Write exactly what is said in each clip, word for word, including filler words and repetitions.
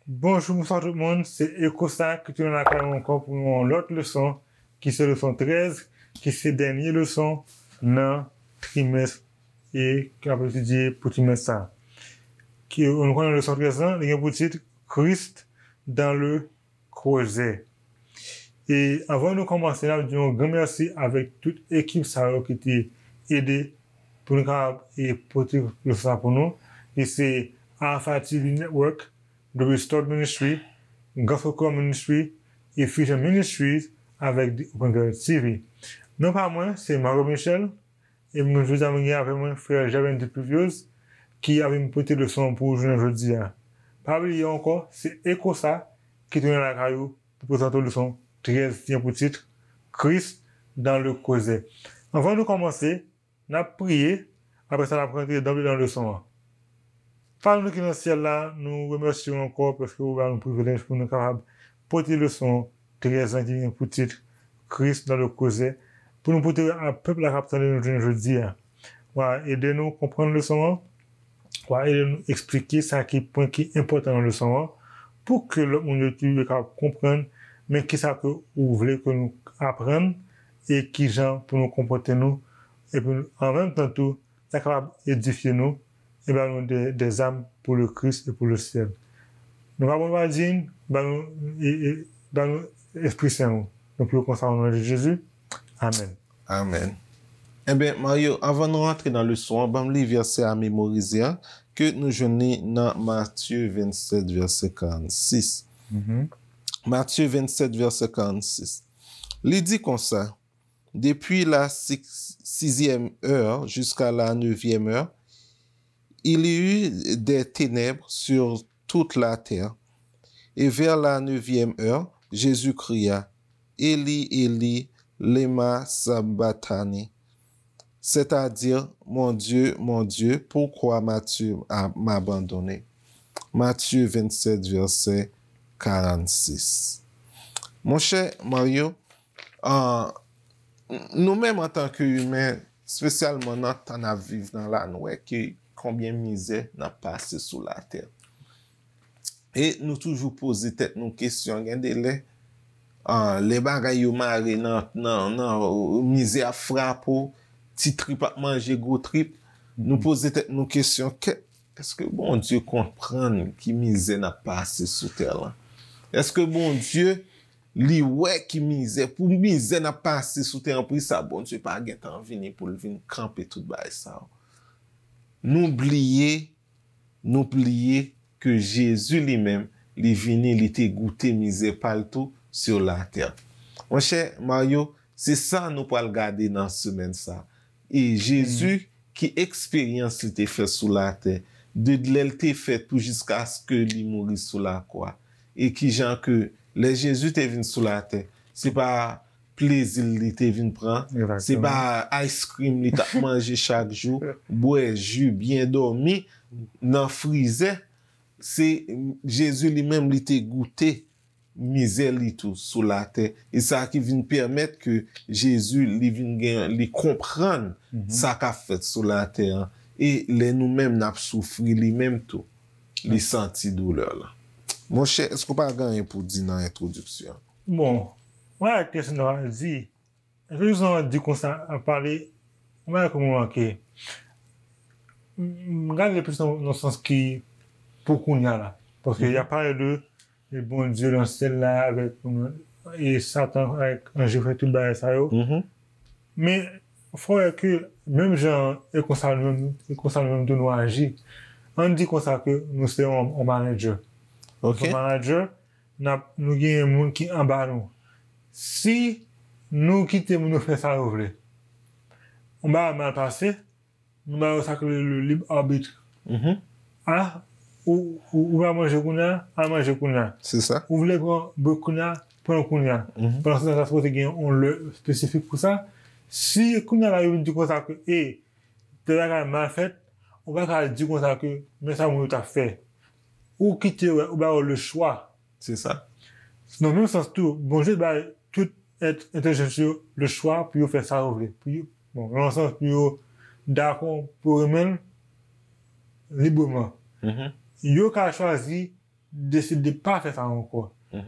Bonjou, bonswa tout moun. Se Ekosa ki tounen lakay mwen ankò pou yon lòt leson, ki se leson trèz, ki se dènye leson nan trimès e k ap etidye pou trimès sa. Ki, nou konnen leson trèz lan, li gen pou tit Christ dans le creuset. E anvan nou kòmanse, n ap di yon gran mèsi avèk tout ekip sa yo ki te ede pou nou kapab e pote leson sa pou nou. E se Alpha T V Network, The Restored Ministry, Gospel Choir Ministry, e Fusion Ministries avèk The Open Door T V. Non pa mwen, se Mario Michel, e mwen jodi a mwen gen avè mwen frè Gervin Dupluvieuse ki ap vin pote leson an pou ou jounen jodi a. Pa bliye ankò, se Ekosa ki tounen lakay ou pou prezante w leson trèz ki gen pou tit Christ dans le creuset. Anvan nou kòmanse, n ap priye, apre sa n ap rantre danble nan leson an. Papa nou ki nan syèl la, nou remèsye w ankò paske ou ba nou privilèj pou nou kapab pote leson trèz lan ki gen pou tit Christ dans le creuset, pou nou pote a pèp la k ap tande nou jounen jodi a. W a ede nou konprann leson an, w a ede nou eksplike sa ki pwen ki enpòtan nan leson an, pou ke lòt moun yo tou yo kapab konprann men kisa ke ou vle ke nou aprann e kijan pou nou konpòte nou, epi an menm tan tou, sa kapab edifye nou e ba nou de, des armes pour le Christ et pour le ciel. Nou pa bon pa di n, ba nou, e, e, ba nou Espri Sen ou. Nou priye konsa o non de Jezi. Amèn. Amèn. Enben, Mario, anvan nou rantre nan leson an, ban m li vèsè a memorize a, ke nou jwenn li nan Matye vennsèt, vèsè karannsis. Mhm. Matye vennsèt, vèsè karannsis. Li di konsa, Depuis la si- sixième heure jusqu'à la neuvième heure, il y eut des ténèbres sur toute la terre. Et vers la neuvième heure, Jésus cria, Élie, Élie, lema sabachthani, c'est-à-dire, Mon Dieu, mon Dieu, pourquoi m'as-tu a- m'abandonné? Matthieu vingt-sept, verset quarante-six. Monchè Mario, ah, nou menm antanke imen, espesyalman nan tan n ap viv nan la, nou wè ke konbyen mizè n ap pase sou latè. E nou toujou poze tèt nou kesyon, gen de lè, ah, lè bagay yo mare nan, nan, nan, mizè ap frape w, ti trip ap manje gwo trip, nou poze tèt nou kesyon, kè, èske Bondye konprann ki mizè n ap pase sou tè lan? Èske Bondye, li wè ki mizè, pou mizè n ap pase sou tè an, pou sa Bondye pa gentan vini pou l vin kanpe tout bagay sa yo? Nou bliye, nou bliye ke Jezi li menm, li vini, li te goute mizè pa l tou sur la terre. Monchè Mario, se sa nou pral gade nan semèn sa. E Jezi, ki eksperyans li te fè sou latè, de lè l te fèt pou jiskaske li mouri sou lakwa. E kijan ke lè Jezi te vin sou latè, se pa plezi l li te vin pran, se pa ice cream li t ap manje chak jou, bwè ji, byen dòmi nan frizè. Se Jezi li menm li te goute mizè li tou sou latè. E sa ki vin pèmèt ke Jezi, li vin gen, li konprann sa k ap fèt sou latè an. E lè nou menm n ap soufri, li menm tou, li santi doulè lan. Monchè, èske w pa gen anyen pou w di nan entwodiksyon an? Bon, mwen ak kesyon nan di, entwodiksyon an di konsa, ap pale, mwen ak mwen manke. M, m gade l plis nan, nan sans ki pou kounye a la. Paske y ap pale de e Bondye nan syèl la avèk, e Satan avèk anj yo fè tout bagay sa yo. Men fò wè ke menm jan e konsa nou menm, e konsa nou menm tou nou aji. Ann di konsa ke nou se yon, yon manager. Nou se yon manager, n ap, nou gen moun ki anba nou. Si nou kite moun yo fè sa yo vle, yon bagay mal pase, nou ba yo sa k rele le libre arbitre. A, ou, ou, ou pa manje kounye a, al manje kounye a. Se sa. Ou vle pran brek kounye a, pran l kounye a. Pandan se tan sa sipoze gen yon lè espesifik pou sa. Si kounye a la yo vin di konsa ke, e, tèl bagay mal fèt, ou pa ka di konsa ke, men sa moun yo t ap fè. Ou kite yo, ou ba yo le chwa. Se sa. Nan menm sans tou, Bondye bay tout èt entèlijans yo le chwa pou yo fè sa yo vle. Pou yo, bon, nan sans pou yo dakò, pou yo renmen l libreman. Yo ka chwazi deside pa fè sa ankò.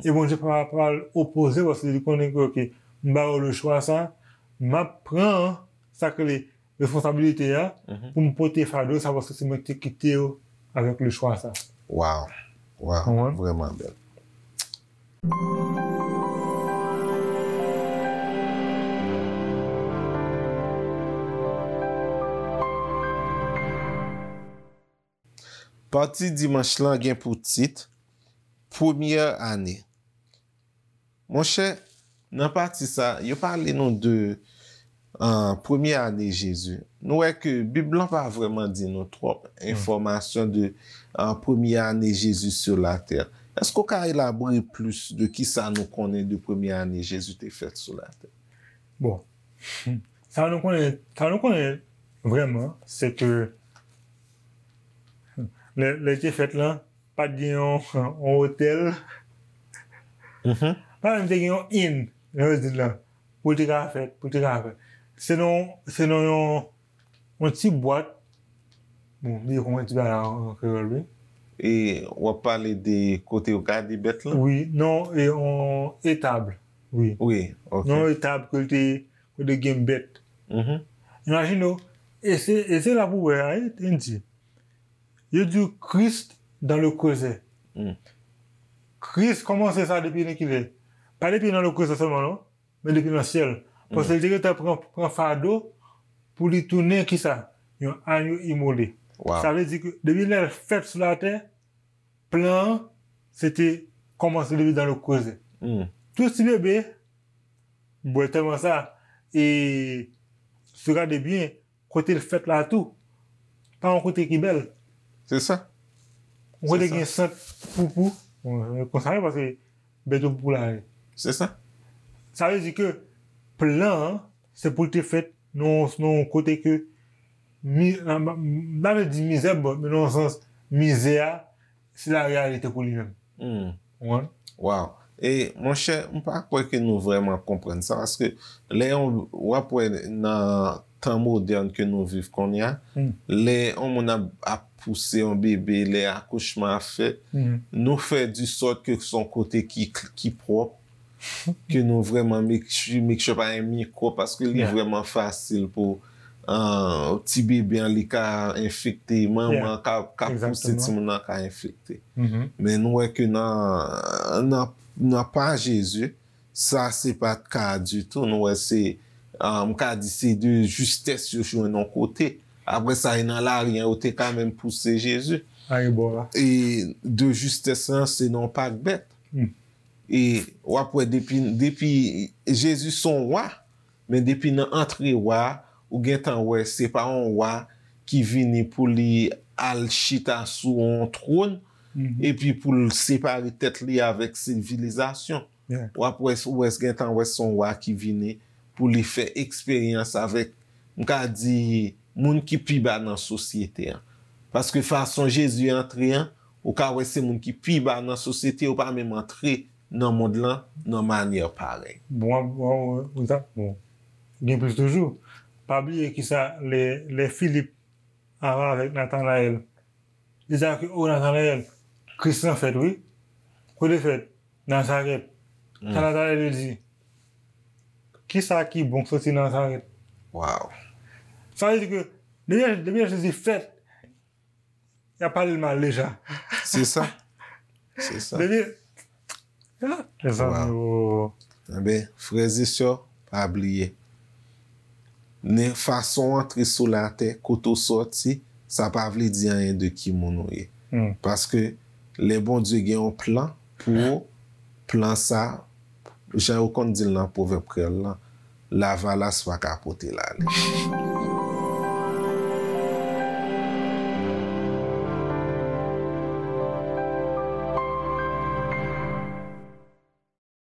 E Bondye pa pral opoze paske li konnen ke, oke, m ba yo le chwa sa, m ap pran sa k rele responsabilite a pou m pote fado sa paske se mwen ki te kite yo avèk le chwa sa. Waw, waw, vrèman bèl. Pati dimanch lan gen pou tit Premyè ane. Monchè, nan pati sa, yo pale nou de premye ane Jezi. Nou wè ke Bib lan pa vrèman di nou twòp enfòmasyon de premye ane Jezi sou latè. Èske w ka elabore plis de kisa nou konnen de premye ane Jezi te fèt sou latè? Bon, sa nou konnen, sa nou konnen vrèman, se ke lè, lè l te fèt lan, pa t gen yon, yon otèl. Pa menm te gen yon inn, jan yo di l lan, pou l te ka fèt, pou l te ka fèt. Se nan, se nan yon, yon ti bwat. Bon, m bliye kòman yo di bagay la an kreyòl, wi. E w ap pale de kote yo gade bèt lan? Wi, non, e yon etab. Wi. Wi, ok. Non, etab ke l te, kote gen bèt. Imajine w, e se, e se la pou w wè a, wi, te di. Yo di Christ dans le creuset. Kris kòmanse sa depi nan kilè? Pa depi nan le creuset sèlman, non, men depi nan syèl. Paske li te gentan pran, pran fado pou li tounen kisa? Yon anyo imole. Sa vle di ke depi lè l fèt sou latè, plan an, se te kòmanse depi dans le creuset. Tout ti bebe, bwè tèlman sa, e si w gade byen, kote l fèt la tou, pa yon kote ki bèl. Se sa. Yon kote gen sant poupou. Bon, konsa wi, paske bèt yo poupou la. Se sa. Sa vle di ke plan an, se pou l te fèt nan, nan yon kote ke, mi, m pa vle di mizè, bon, men nan yon sans, mizè a, se la reyalite pou li menm. Ou konprann? Waw. E, monchè, m pa kwè ke nou vrèman konprann sa, paske lè yon, w ap wè nan tan modèn ke nou viv kounye a, lè yon moun ap, ap pouse yon bebe, lè akouchman ap fèt, nou fè di sòt ke se yon kote ki, ki pwòp, ke nou vrèman make sure, make sure pa gen mikwòb, paske li vrèman fasil pou ti bebe an li ka enfekte, manman an ka, ka pouse timoun nan ka enfekte. Men nou wè ke nan, nan, nan pa Jezi, sa se pa t ka ditou. Nou wè se, m ka di se de justès yo jwenn yon kote. Apre sa, e nan lari an, yo te ka menm pouse Jezi. E de justès lan, se nan yon pak bèt. E w ap wè depi, depi Jezi se yon wa, men depi nan antre wa, ou gentan wè se pa yon wa ki vini pou li al chita sou yon twòn, epi pou l separe tèt li avèk sivilizasyon. W ap wè, ou wè gentan wè se yon wa ki vini pou li fè eksperyans avèk, m ka di, moun ki pi ba nan sosyete an. Paske fason Jezi antre an, ou ka wè se moun ki pi ba nan sosyete, yo pa menm antre nan mond lan nan manyè parèy. Bon, bon, bon, gen plis toujou. Pa bliye kisa lè, lè Filip avè avèk Natanayèl, li di ke, o Natanayèl, Kris lan fèt, wi. Kote fèt? Nazarèt. Sa Natanayèl di, kisa ki bon k soti nan Nazarèt? Waw. Sa vle di ke depi, depi Jezi fèt, y ap pale l mal deja. Se sa. Se sa. Depi, ah, mezanmi, oh. Enben, frè e sè, pa bliye. Nen fason w antre sou latè, kote w sòti, sa pa vle di anyen de ki moun ou ye. Paske lè Bondye gen yon plan pou ou, plan sa, jan yo konn di l nan pwovèb kreyòl lan, lavalas pa ka pote l ale.